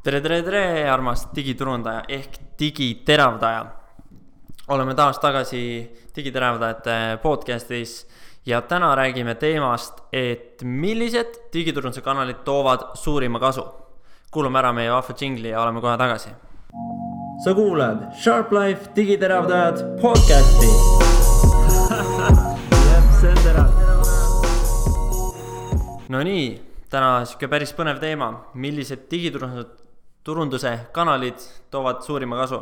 Tere, armas digiturundaja ehk digiteravdaja. Oleme taas tagasi digiteravdajate podcastis ja täna räägime teemast, et millised digiturunduse kanalid toovad suurima kasu. Kuulame ära meie vahva džingli ja oleme kohe tagasi. Sa kuulad Sharp Life digiteravdajad podcasti. See on terav. No nii, täna siuke päris põnev teema, millised digiturunduse kanalid toovad suurima kasu.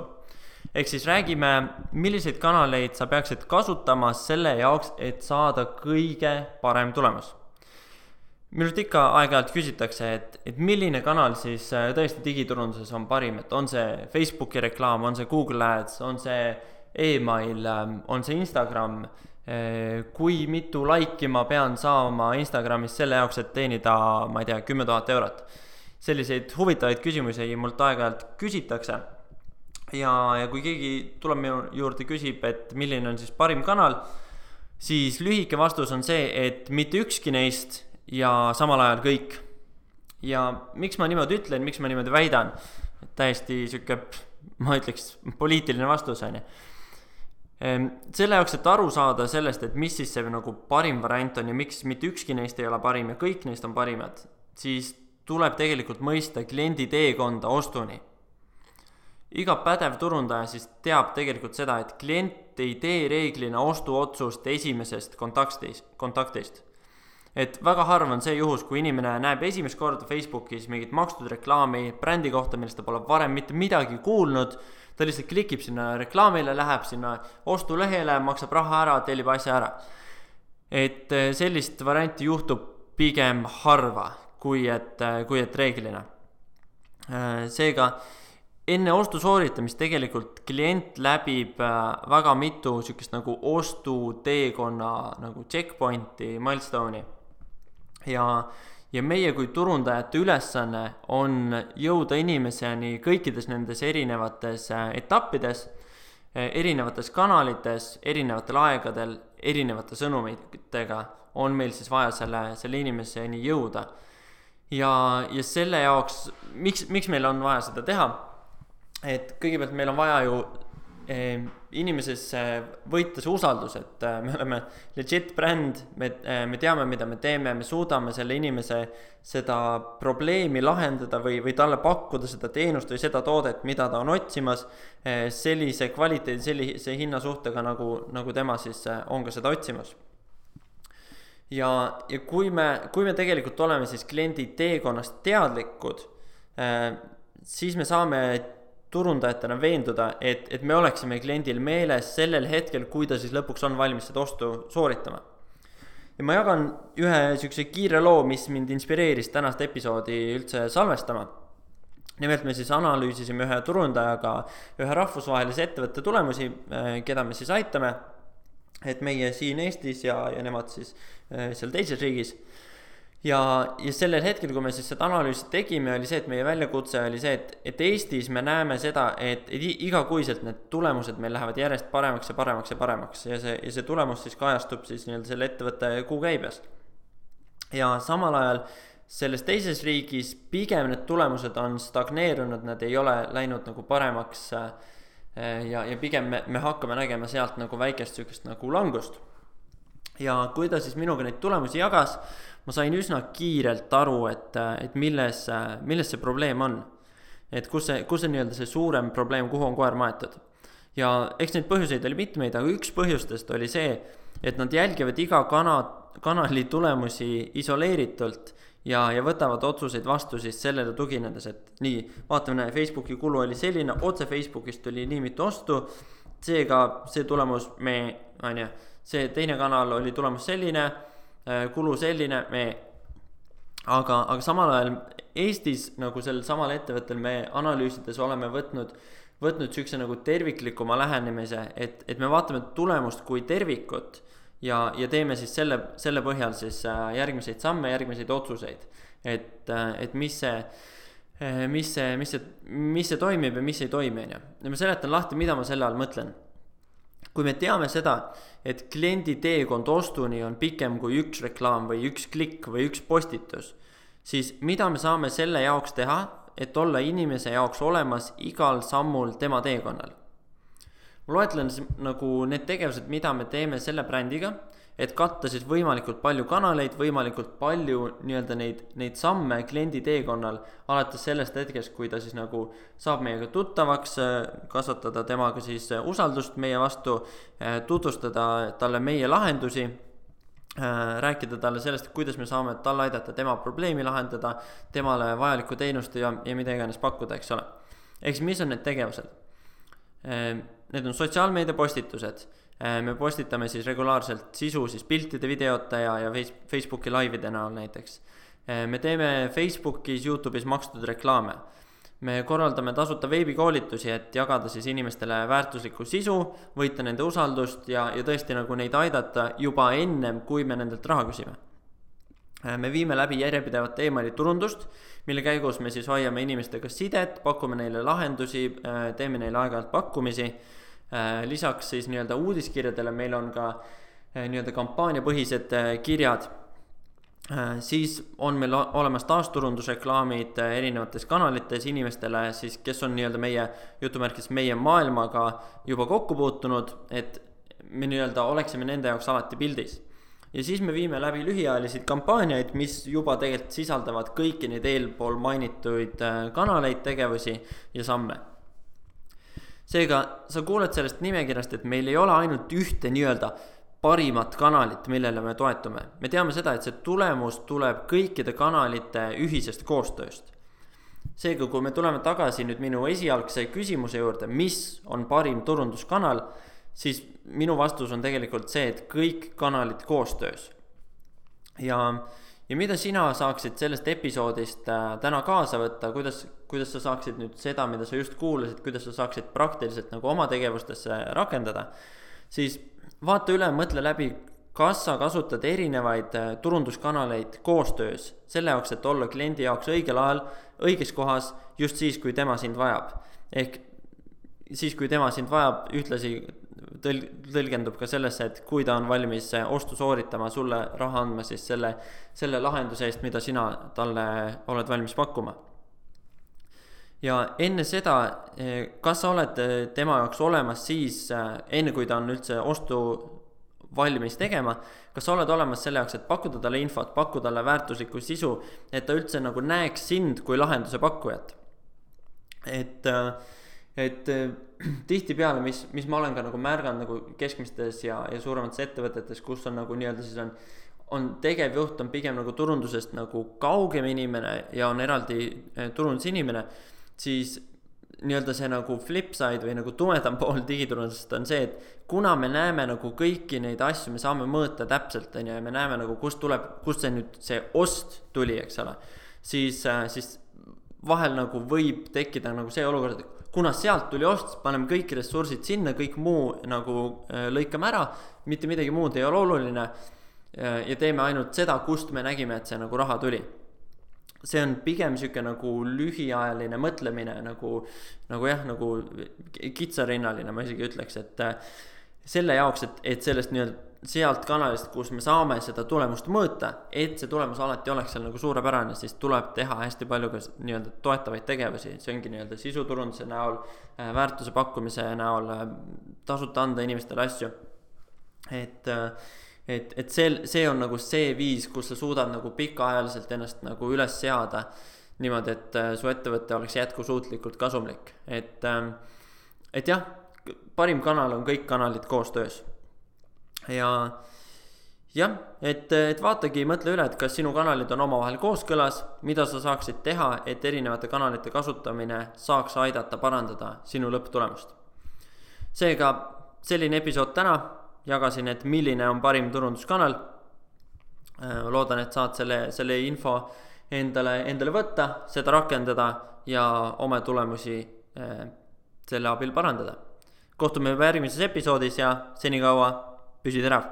Ehk siis räägime, milliseid kanaleid sa peaksid kasutama selle jaoks, et saada kõige parem tulemus. Minult ikka aeg-ajalt küsitakse, et milline kanal siis tõesti digiturunduses on parim, et on see Facebooki reklaam, on see Google Ads, on see email, on see Instagram, kui mitu laiki ma pean saama Instagramis selle jaoks, et teenida, ma ei tea, 10 000 eurot. Selliseid huvitavaid küsimusi mult aeg-ajalt küsitakse. Ja kui keegi tuleb minu juurde küsib, et milline on siis parim kanal, siis lühike vastus on see, et mitte ükski neist ja samal ajal kõik. Ja miks ma niimoodi ütlen, miks ma niimoodi väidan, täiesti siuke, ma ütleks, poliitiline vastus on. Selle jaoks, et aru saada sellest, et mis siis see nagu parim variant on ja miks mitte ükski neist ei ole parim ja kõik neist on parimad, siis tuleb tegelikult mõista kliendi teekonda ostuni. Iga pädev turundaja siis teab tegelikult seda, et klient ei tee reeglina ostuotsust esimesest kontaktist. Et väga harv on see juhus, kui inimene näeb esimest korda Facebookis mingit makstud reklaami brändi kohta, millest ta pole varem mitte midagi kuulnud, ta lihtsalt klikib sinna reklaamile, läheb sinna ostulehele, maksab raha ära, tellib asja ära. Et sellist varianti juhtub pigem harva, kui et reeglina. Seega, enne ostu sooritamist tegelikult klient läbib väga mitu sükest nagu ostuteekonna nagu checkpointi, milestone'i. Ja meie kui turundajate ülesanne on jõuda inimeseni kõikides nendes erinevates etappides, erinevates kanalites, erinevatel aegadel, erinevate sõnumitega on meil siis vaja selle inimeseni jõuda. Ja selle jaoks, miks meil on vaja seda teha? Et kõigepealt meil on vaja ju inimeses võita see usaldus, et me oleme legit bränd, me teame, mida me teeme, me suudame selle inimese seda probleemi lahendada või talle pakkuda seda teenust või seda toodet, mida ta on otsimas, sellise kvaliteedi, sellise hinnasuhtega, nagu tema siis on ka seda otsimas. Ja kui me tegelikult oleme siis kliendi teekonnast teadlikud, siis me saame turundajatena veenduda, et me oleksime kliendil meeles sellel hetkel, kui ta siis lõpuks on valmis seda ostu sooritama. Ja ma jagan ühe sükse kiire loo, mis mind inspireeris tänast episoodi üldse salvestama. Nimelt me siis analüüsisime ühe turundajaga ühe rahvusvahelise ettevõtte tulemusi, keda me siis aitame, et meie siin Eestis ja nemad siis seal teises riigis. Ja sellel hetkel, kui me siis seda analüüsi tegime, oli see, et meie väljakutse oli see, et Eestis me näeme seda, et igakuiselt need tulemused meil lähevad järjest paremaks ja paremaks ja paremaks ja see tulemus siis kajastub siis selle ettevõtte kuukäibes. Ja samal ajal selles teises riigis pigem need tulemused on stagneerunud, nad ei ole läinud nagu paremaks ja pigem me hakkame nägema sealt nagu väikest sükest nagu langust. Ja kui ta siis minuga neid tulemusi jagas, ma sain üsna kiirelt aru, et milles see probleem on. Et kus see nii-öelda see suurem probleem, kuhu on koer maetud. Ja eks neid põhjuseid oli mitmeid, aga üks põhjustest oli see, et nad jälgivad iga kanali tulemusi isoleeritult ja võtavad otsuseid vastu siis sellele tuginedes, et nii, vaatame, Facebooki kulu oli selline, otse Facebookist tuli nii mitu ostu, seega see tulemus see teine kanal oli tulemus selline, kulu selline, aga samal ajal Eestis nagu sellel samal ettevõttel me analüüsides oleme võtnud sükse nagu terviklikuma lähenemise, et me vaatame tulemust kui tervikut ja teeme siis selle põhjal siis järgmiseid samme, järgmiseid otsuseid, et mis see toimib ja mis ei toimi. Ja ma seletan lahti, mida ma selle all mõtlen. Kui me teame seda, et kliendi teekond ostuni on pikem kui üks reklaam või üks klikk või üks postitus, siis mida me saame selle jaoks teha, et olla inimese jaoks olemas igal sammul tema teekonnal. Ma loetlen nagu need tegevused, mida me teeme selle brändiga, et katta siis võimalikult palju kanaleid, võimalikult palju nii-öelda neid samme kliendi teekonnal, alates sellest hetkest, kui ta siis nagu saab meiega tuttavaks, kasvatada temaga siis usaldust meie vastu, tutvustada talle meie lahendusi, rääkida talle sellest, kuidas me saame talle aidata tema probleemi lahendada, temale vajalikku teenust ja mida iganes pakkuda, eks ole. Eks mis on need tegevused? Need on sotsiaalmeedia postitused. Me postitame siis regulaarselt sisu siis piltide, videote ja Facebooki laivide näol näiteks. Me teeme Facebookis, YouTube'is makstud reklaame. Me korraldame tasuta veebikoolitusi, et jagada siis inimestele väärtuslikku sisu, võita nende usaldust ja tõesti nagu neid aidata juba ennem, kui me nendelt raha küsime. Me viime läbi järjepidevat emaili turundust, mille käigus me siis hoiame inimestega sidet, pakume neile lahendusi, teeme neile aeg-ajalt pakkumisi. Lisaks siis nii-öelda uudiskirjadele meil on ka nii-öelda kampaaniapõhised kirjad. Siis on meil olemas taasturundusreklaamid erinevates kanalites inimestele, siis, kes on nii-öelda meie maailmaga juba kokku puutunud, et me nii-öelda oleksime nende jaoks alati pildis. Ja siis me viime läbi lühiajalisi kampaaniaid, mis juba tegelikult sisaldavad kõiki neid eelpool mainituid kanaleid, tegevusi ja samme. Seega sa kuuled sellest nimekirjast, et meil ei ole ainult ühte nii-öelda parimat kanalit, millele me toetume. Me teame seda, et see tulemus tuleb kõikide kanalite ühisest koostööst. Seega, kui me tuleme tagasi nüüd minu esialgse küsimuse juurde, mis on parim turunduskanal, siis minu vastus on tegelikult see, et kõik kanalid koostöös. Ja mida sina saaksid sellest episoodist täna kaasa võtta, kuidas sa saaksid nüüd seda, mida sa just kuulasid, kuidas sa saaksid praktiliselt nagu oma tegevustesse rakendada, siis vaata üle, mõtle läbi, kas sa kasutad erinevaid turunduskanaleid koostöös, selle jaoks, et olla kliendi jaoks õigel ajal, õiges kohas, just siis, kui tema sind vajab. Ehk siis, kui tema sind vajab, ühtlasi tõlgendub ka sellesse, et kui ta on valmis ostu sooritama, sulle raha andma siis selle lahenduse eest, mida sina talle oled valmis pakkuma. Ja enne seda, kas sa oled tema jaoks olemas siis, enne kui ta on üldse ostu valmis tegema, kas sa oled olemas selle jaoks, et pakkuda talle infot, pakkuda talle väärtuslikku sisu, et ta üldse nagu näeks sind kui lahenduse pakkujat. Et tihtipeale, mis ma olen ka nagu märganud nagu keskmistes ja suuremates ettevõtetes, kus on nagu nii-öelda siis on tegevjuht on pigem nagu turundusest nagu kaugem inimene ja on eraldi turundusinimene, siis nii-öelda see nagu flipside või nagu tumedam pool digiturundusest on see, et kuna me näeme nagu kõiki neid asju, me saame mõõta täpselt ja me näeme nagu kust see nüüd see ost tuli, eks ole, siis vahel nagu võib tekkida nagu see olukord, et kuna sealt tuli ost, paneme kõik ressursid sinna, kõik muu nagu lõikame ära, mitte midagi muud ei ole oluline ja teeme ainult seda, kust me nägime, et see nagu raha tuli. See on pigem siuke nagu lühiajaline mõtlemine, nagu kitsarinnaline, ma isegi ütleks, et selle jaoks, et sellest nii-öelda sealt kanalist, kus me saame seda tulemust mõõta, et see tulemus alati oleks seal nagu suurepärane, siis tuleb teha hästi palju ka nii-öelda toetavaid tegevusi, see ongi nii-öelda sisuturunduse näol, väärtuse pakkumise näol, tasuta anda inimestele asju. Et see on nagu see viis, kus sa suudad nagu pikaajaliselt ennast nagu üles seada niimoodi, et su ettevõte oleks jätkusuutlikult kasumlik. Et jah, parim kanal on kõik kanalid koostöös. Et vaatagi, mõtle üle, et kas sinu kanalid on omavahel kooskõlas, mida sa saaksid teha, et erinevate kanalite kasutamine saaks aidata parandada sinu lõpptulemust. Seega selline episood täna, jagasin, et milline on parim turunduskanal. Loodan, et saad selle info endale võtta, seda rakendada ja oma tulemusi selle abil parandada. Kohtume juba järgmises episoodis ja senikaua püsi terav.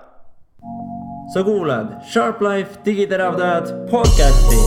Sa kuulad Sharp Life digiteravdajad podcasti.